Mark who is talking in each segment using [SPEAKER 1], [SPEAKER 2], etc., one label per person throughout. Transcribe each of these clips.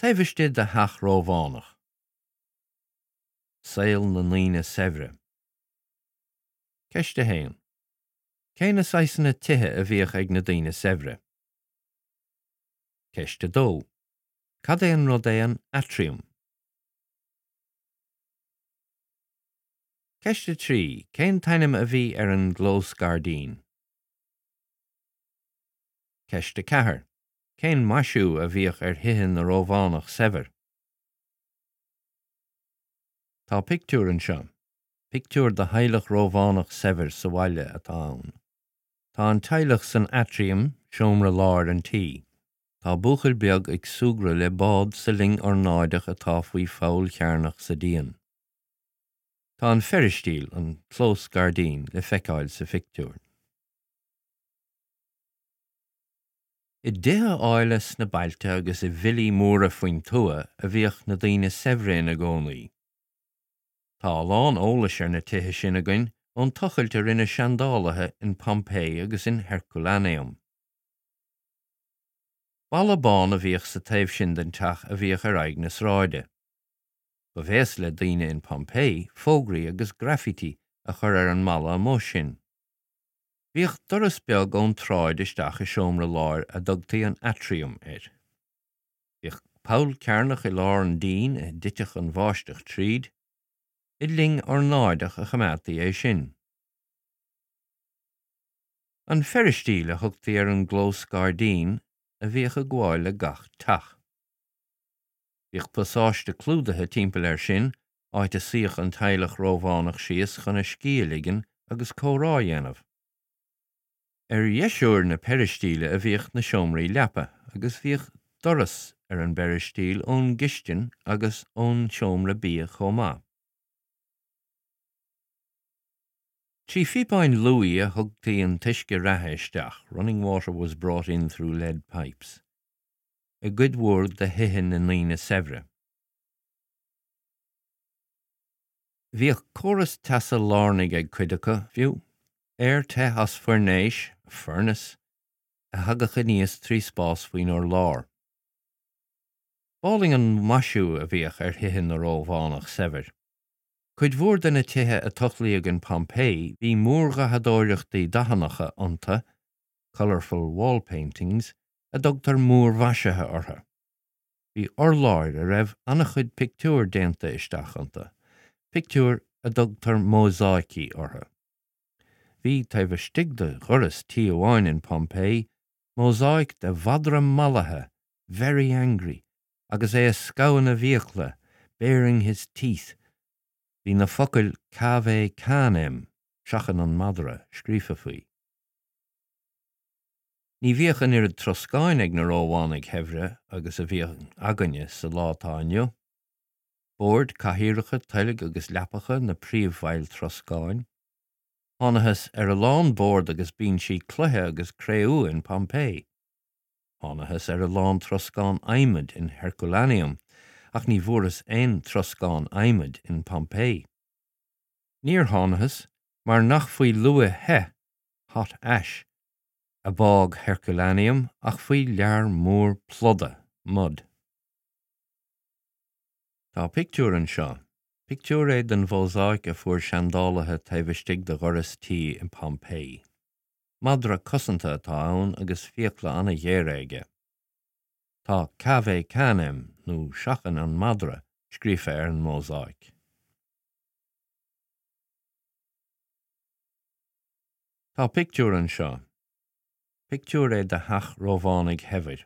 [SPEAKER 1] Taobh istigh de theach Rómhánach. Saol na ndaoine saibhre. Ceist 1. Cé na saghsanna tithe a bhíodh ag na daoine saibhre? Ceist 2. Cad é an rud é an aitriam? Ceist 3. Cén t-ainm a bhí ar an gclós gairdín? Ceist 4. Cén maisiú a bhíodh ar thithe na Rómhánach saibhir? Tá pictiúr anseo. Pictiúr de theaghlach Rómhánach saibhir sa bhaile atá ann. Tá an teaghlach san aitriam, seomra láir an tí. Tá buachaill beag ag súgradh le bád sa linn ornáideach atá faoi pholl chearnach sa díon. Tá an pheiristíl, an clós gairdín, le feiceáil sa phictiúr. I dtithe áille sna bailte agus i bhfillí móra faoin tuath a bhíodh na daoine saibhre ina gcónaí. Tá a lán eolais ar na tithe sin againn ón tochailt a rinne seandálaithe in Pompeii agus in Herculaneum. Balla bán a bhíodh sa taobh sin den teach a bhíodh ar aghaidh na sráide. Ba bhéas le daoine in Pompeii fógraí agus graffiti a chur ar an mballa amuigh sin. Bhíodh doras beag ón tsráid isteach i seomra láir a dtugtaí an aitriam air. Bhíodh poll cearnach i lár an dín a dtitfeadh an bháisteach tríd. I linn ornáideach a choimeádtaí é sin. An pheiristíl a thugtaí ar an gclós gairdín a bhíodh ag gabháil le gach teach. Bhíodh pasáiste clúdaithe timpeall air sin áit a suíodh an teaghlach Rómhánach síos chun a scíth a ligean agus comhrá a dhéanamh. Ar dheisiúr na peiristíle a bhíodh na seomraí leapa agus bhíodh doras ar an bpeiristíl ón gcistin agus ón seomra bia chomh maith. Trí phíopáin luaí a thugtaí an t-uisce reatha isteach, running water was brought in through lead pipes, i gcuid mhór de thithe na ndaoine saibhre. Bhíodh córas teasa lárnaigh ag cuid acu, fiú, aer te as foirnéis, furnace, a thagadh aníos trí spás faoin urlár. B'álainn an maisiú a bhíodh ar thithe na Rómhánach saibhir. Cuid mhór de na tithe a tochlaíodh in Pompeii bhí múrdhathadóireachtaí dathannacha iontu, colourful wall paintings, a dtugtar múrmhaisithe orthu. Bhí urláir a raibh an-chuid pictiúr déanta isteach iontu, pictiúir a dtugtar mósáicí orthu. Bhí, taobh istigh de dhoras tí amháin in Pompeii, mósáic de mhadra mallaithe, very angry, agus é ag scamhadh na bhfiacla, baring his teeth. Bhí na focail Cave Canem, seachain an madra, scríofa faoi. Ní bhíodh an oiread troscáin ag na Rómhánaigh shaibhre agus a bhíonn againne sa lá atá inniu. Boird, cathaoireacha, toilg agus leapacha na príomhbhaill troscáin. Thánathas ar a lán bord agus binsí cloiche agus cré-umha in Pompeii. Thánathas ar a lán troscán adhmaid in Herculaneum, ach ní bhfuarthas aon troscán adhmaid in Pompeii. Níor thánathas mar nach faoi luaith the, hot ash, a bádh Herculaneum ach faoi lear mór pluda, mud. Tá pictiúr anseo. Pictiúr é den mhósáic a fuair seandálaithe taobh istigh de dhoras tí i Pompeii. Madra cosanta atá ann agus fiacla an-ghéara aige. Tá Cave Canem, nó Seachain an Madra, scríofa ar an mósáic. Tá pictiúr anseo. Pictiúr é de theach Rómhánaigh shaibhir.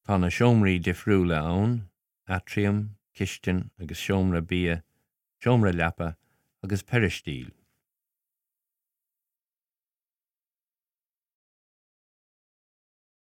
[SPEAKER 1] Tá na seomraí difriúla ann, aitriam, cistin agus seomra bia, seomra leapa agus peiristíl.